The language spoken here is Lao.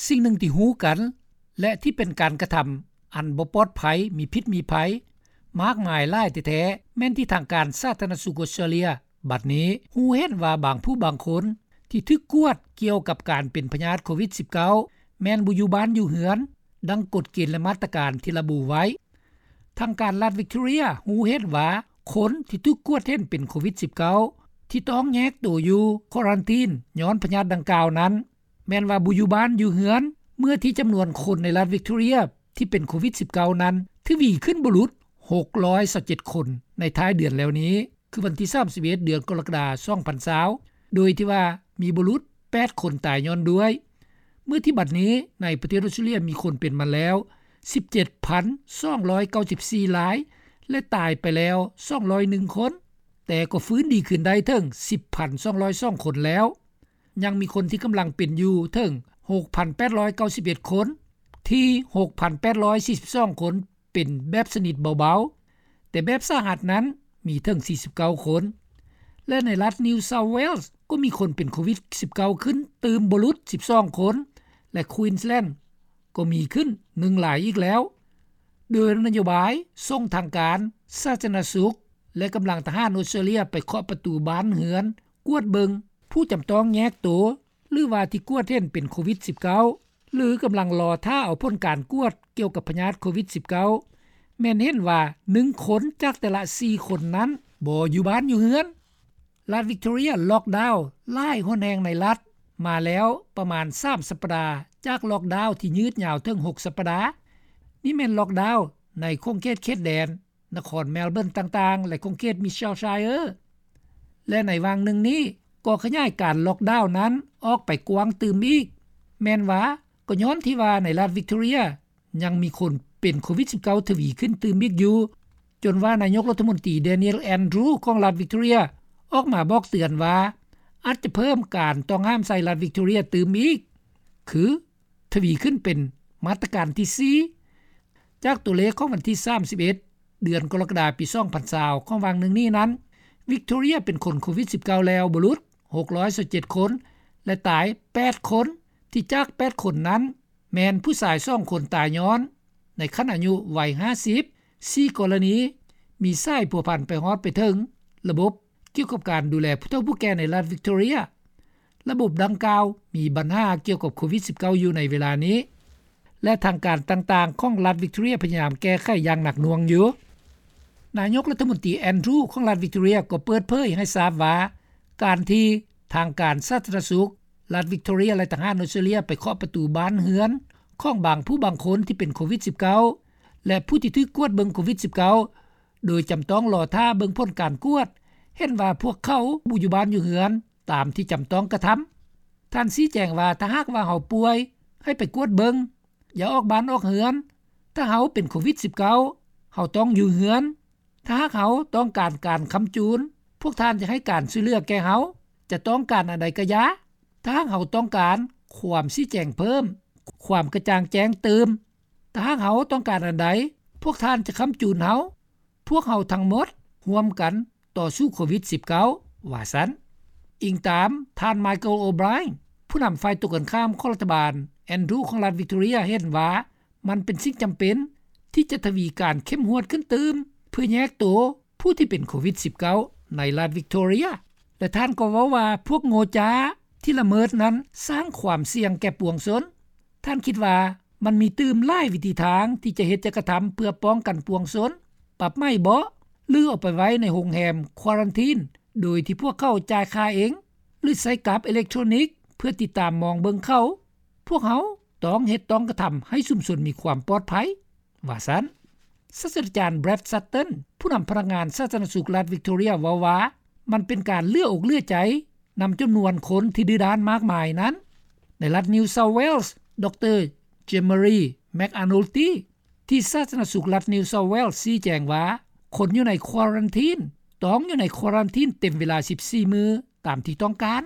ສິ່ງໜຶ່ງທີ່ຮູ້ກັນ ແລະ ທີ່ເປັນການກະທຳອັນບໍ່ປອດໄພ, ມີພິດມີໄພ ມາກມາຍຫຼາຍແທ້ໆ ແມ່ນທີ່ທາງການສາທາລະນະສຸກອົດສະຕຣາເລຍ ບັດນີ້ຮູ້ເຫັນວ່າບາງຜູ້ບາງຄົນທີ່ຖືກກວດກ່ຽວກັບການເປັນພະຍາດໂຄວິດສິບເກົ້າ ແມ່ນບໍ່ຢູ່ບ້ານຢູ່ເຮືອນ ດັ່ງກົດເກນ ແລະ ມາດຕະການທີ່ລະບຸໄວ້. ທາງການລັດວິກຕໍເຣຍຮູ້ເຫັນວ່າ ຄົນທີ່ຖືກກວດເຫັນເປັນໂຄວິດສິບເກົ້າ ທີ່ຕ້ອງແຍກໂຕຢູ່ຄວາຣັນທີນຍ້ອນພະຍາດດັ່ງກ່າວນັ້ນ ແມ່ນວ່າບໍ່ຢູ່ບ້ານຢູ່ເຮືອນ ເມື່ອທີ່ຈຳນວນຄົນໃນລັດວິກຕໍເຣຍທີ່ເປັນໂຄວິດສິບເກົ້ານັ້ນ ທະວີຂຶ້ນບໍ່ຫຼຸດຫົກຮ້ອຍຊາວເຈັດຄົນໃນທ້າຍເດືອນແລ້ວນີ້ ຄືວັນທີສາມສິບເອັດ ເດືອນກໍລະກະດາ ສອງພັນຊາວ ໂດຍທີ່ວ່າມີບໍ່ຫຼຸດແປດຄົນຕາຍຍ້ອນດ້ວຍ ເມື່ອທີ່ບັດນີ້ໃນປະເທດອົດສະຕຣາເລຍມີຄົນເປັນມາແລ້ວສິບເຈັດພັນສອງຮ້ອຍເກົ້າສິບສີ່ລາຍ ແລະ ຕາຍໄປແລ້ວສອງຮ້ອຍໜຶ່ງຄົນ ແຕ່ກໍຟື້ນດີຂຶ້ນໄດ້ເຖິງສິບພັນສອງຮ້ອຍສອງຄົນແລ້ວ. ຍັງມີຄົນທີ່ກຳລັງເປັນຢູ່ເຖິງຫົກພັນແປດຮ້ອຍເກົ້າສິບເອັດຄົນ ທີ່ຫົກພັນແປດຮ້ອຍສີ່ສິບສອງຄົນເປັນແບບຊະນິດເບົາໆ ແຕ່ແບບສາຫັດນັ້ນມີເຖິງສີ່ສິບເກົ້າຄົນ ແລະ ໃນລັດ New South Wales ກໍມີຄົນເປັນໂຄວິດສິບເກົ້າຂຶ້ນຕື່ມບໍ່ຫຼຸດສິບສອງຄົນ ແລະ Queensland ກໍມີຂຶ້ນໜຶ່ງລາຍອີກແລ້ວ ໂດຍນະໂຍບາຍສົ່ງທາງການສາທາລະນະສຸກ ແລະ ກຳລັງທະຫານອົດສະຕຣາເລຍໄປເຄາະປະຕູບ້ານເຮືອນ ກວດເບິ່ງຜູ້ຈຳຕ້ອງແຍກໂຕ ຫຼືວ່າທີ່ກວດເຫັນເປັນໂຄວິດສິບເກົ້າ ຫຼືກຳລັງລໍຖ້າເອົາຜົນການກວດກ່ຽວກັບພະຍາດໂຄວິດສິບເກົ້າ ແມ່ນເຫັນວ່າໜຶ່ງຄົນຈາກແຕ່ລະສີ່ຄົນນັ້ນບໍ່ຢູ່ບ້ານຢູ່ເຮືອນ. ລັດວິກຕໍເຣຍລັອກດາວຫຼາຍຫົນແຫ່ງໃນລັດມາແລ້ວປະມານສາມສັບປະດາ ຈາກລັອກດາວທີ່ຍືດຍາວເຖິງຫົກສັບປະດາ. ນີ້ແມ່ນລັອກດາວໃນຂົງເຂດເຂດແດນ ນະຄອນແມລເບີນຕ່າງໆ ແລະ ຂົງເຂດ Mitchellshire ແລະ ໃນຫວ່າງໜຶ່ງນີ້ກໍຂະຫຍາຍການລັອກດາວນັ້ນອອກໄປກວ້າງຕື່ມອີກ ແມ່ນວ່າກໍຍ້ອນທີ່ວ່າໃນລັດວິກຕໍເຣຍຍັງມີຄົນເປັນໂຄວິດສິບເກົ້າທະວີຂຶ້ນຕື່ມອີກຢູ່ ຈົນວ່ານາຍົກລັດຖະມົນຕີ Daniel Andrews ຂອງລັດວິກຕໍເຣຍອອກມາບອກເຕືອນວ່າ ອາດຈະເພີ່ມການຕ້ອງຫ້າມໃສ່ລັດວິກຕໍເຣຍຕື່ມອີກ ຄື ທະວີຂຶ້ນເປັນມາດຕະການທີສີ່ ຈາກຕົວເລກຂອງວັນທີສາມສິບເອັດ ເດືອນກໍລະກະດາ ປີສອງພັນຊາວ ຂອງຫວ່າງໜຶ່ງນີ້ນັ້ນ ວິກຕໍເຣຍເປັນຄົນໂຄວິດສິບເກົ້າແລ້ວບໍ່ຫຼຸດຫົກຮ້ອຍຊາວເຈັດຄົນ ແລະ ຕາຍແປດຄົນ ທີ່ຈາກແປດຄົນນັ້ນ ແມ່ນຜູ້ຊາຍສອງຄົນຕາຍຍ້ອນໃນຂັ້ນອາຍຸໄວຫ້າສິບ ສີ່ກໍລະນີ ມີສາຍພົວພັນໄປຮອດໄປເຖິງລະບົບ ກ່ຽວກັບການດູແລຜູ້ເຖົ້າຜູ້ແກ່ໃນລັດວິກຕໍເຣຍ. ລະບົບດັ່ງກ່າວມີບັນຫາກ່ຽວກັບໂຄວິດສິບເກົ້າຢູ່ໃນເວລານີ້ ແລະ ທາງການຕ່າງໆຂອງລັດວິກຕໍເຣຍພະຍາຍາມແກ້ໄຂຢ່າງໜັກໜ່ວງຢູ່. ນາຍົກລັດຖະມົນຕີ Andrews ຂອງລັດວິກຕໍເຣຍກໍເປີດເຜີຍໃຫ້ຊາບວ່າ ການທີ່ທາງການສາທາລະນະສຸກລັດວິກຕໍເຣຍ ແລະ ທະຫານອົດສະຕຣາເລຍໄປເຄາະປະຕູບ້ານເຮືອນຂອງບາງຜູ້ບາງຄົນທີ່ເປັນໂຄວິດສິບເກົ້າ ແລະ ຜູ້ທີ່ຖືກກວດເບິ່ງໂຄວິດສິບເກົ້າ ໂດຍຈຳຕ້ອງລໍຖ້າເບິ່ງຜົນການກວດ ເຫັນວ່າພວກເຂົາບໍ່ຢູ່ບ້ານຢູ່ເຮືອນຕາມທີ່ຈຳຕ້ອງກະທຳ. ທ່ານຊີ້ແຈງວ່າ ຖ້າຫາກວ່າເຮົາປ່ວຍ ໃຫ້ໄປກວດເບິ່ງ, ຢ່າອອກບ້ານອອກເຮືອນ. ຖ້າເຮົາເປັນໂຄວິດສິບເກົ້າ ເຮົາຕ້ອງຢູ່ເຮືອນ. ຖ້າຫາກເຮົາຕ້ອງການການຄ້ຳຈູນ, ພວກທ່ານຈະໃຫ້ການຊ່ວຍເຫຼືອແກ່ເຮົາ, ຈະຕ້ອງການອັນໃດກະຢ່າ. ຖ້າຫາກເຮົາຕ້ອງການຄວາມຊີ້ແຈງເພີ່ມ, ຄວາມກະຈ່າງແຈ້ງຕື່ມ, ຖ້າຫາກເຮົາຕ້ອງການອັນໃດ, ພວກທ່ານຈະຄ້ຳຈູນເຮົາ. ພວກເຮົາທັງໝົດຮ່ວມກັນຕໍ່ສູ້ໂຄວິດສິບເກົ້າ ວ່າຊັ້ນ. ອີງຕາມທ່ານ Michael O'Brien ຜູ້ນຳຝ່າຍຕົງກັນຂ້າມຂອງລັດຖະບານ Andrews ຂອງລັດວິກຕໍເຣຍ ເຫັນວ່າ ມັນເປັນສິ່ງຈຳເປັນທີ່ຈະທະວີການເຂັ້ມງວດຂຶ້ນຕື່ມ ເພື່ອແຍກໂຕຜູ້ທີ່ເປັນໂຄວິດສິບເກົ້າ ໃນລັດວິກຕໍເຣຍ ແລະ ທ່ານກໍເວົ້າວ່າ ພວກໂງ່ຈ້າທີ່ລະເມີດນັ້ນສ້າງຄວາມສ່ຽງແກ່ປວງຊົນ. ທ່ານຄິດວ່າມັນມີຕື່ມຫຼາຍວິທີທາງທີ່ຈະເຮັດຈະກະທຳເພື່ອປ້ອງກັນປວງຊົນ, ປັບໃໝເບາະ ຫຼື ເອົາໄປໄວ້ໃນໂຮງແຮມຄວາຣັນທີນ ໂດຍທີ່ພວກເຂົາຈ່າຍຄ່າເອງ ຫຼື ໃຊ້ກັບເອເລັກໂທຣນິກເພື່ອຕິດຕາມມອງເບິ່ງເຂົາ. ພວກເຮົາຕ້ອງເຮັດຕ້ອງກະທຳໃຫ້ຊຸມຊົນມີຄວາມປອດໄພ ວ່າຊັ້ນ. ສາດສະດາຈານ Brad Sutton ຜູ້ນຳພະນັກງານສາທາລະນະສຸກລັດວິກຕໍເຣຍ ເວົ້າວ່າ ມັນເປັນການເຫຼືອອົກເຫຼືອໃຈນຳຈຳນວນຄົນທີ່ດື້ດ້ານມາກມາຍນັ້ນ. ໃນລັດ New South Wales ດຣ Jean-Marie McAnulty ທີ່ສາທາລະນະສຸກລັດ New South Wales ຊີ້ແຈງວ່າ ຄົນຢູ່ໃນຄວາຣັນທີນ ຕ້ອງຢູ່ໃນຄວາຣັນທີນເຕັມເວລາສິບສີ່ມື້ຕາມທີ່ຕ້ອງການ.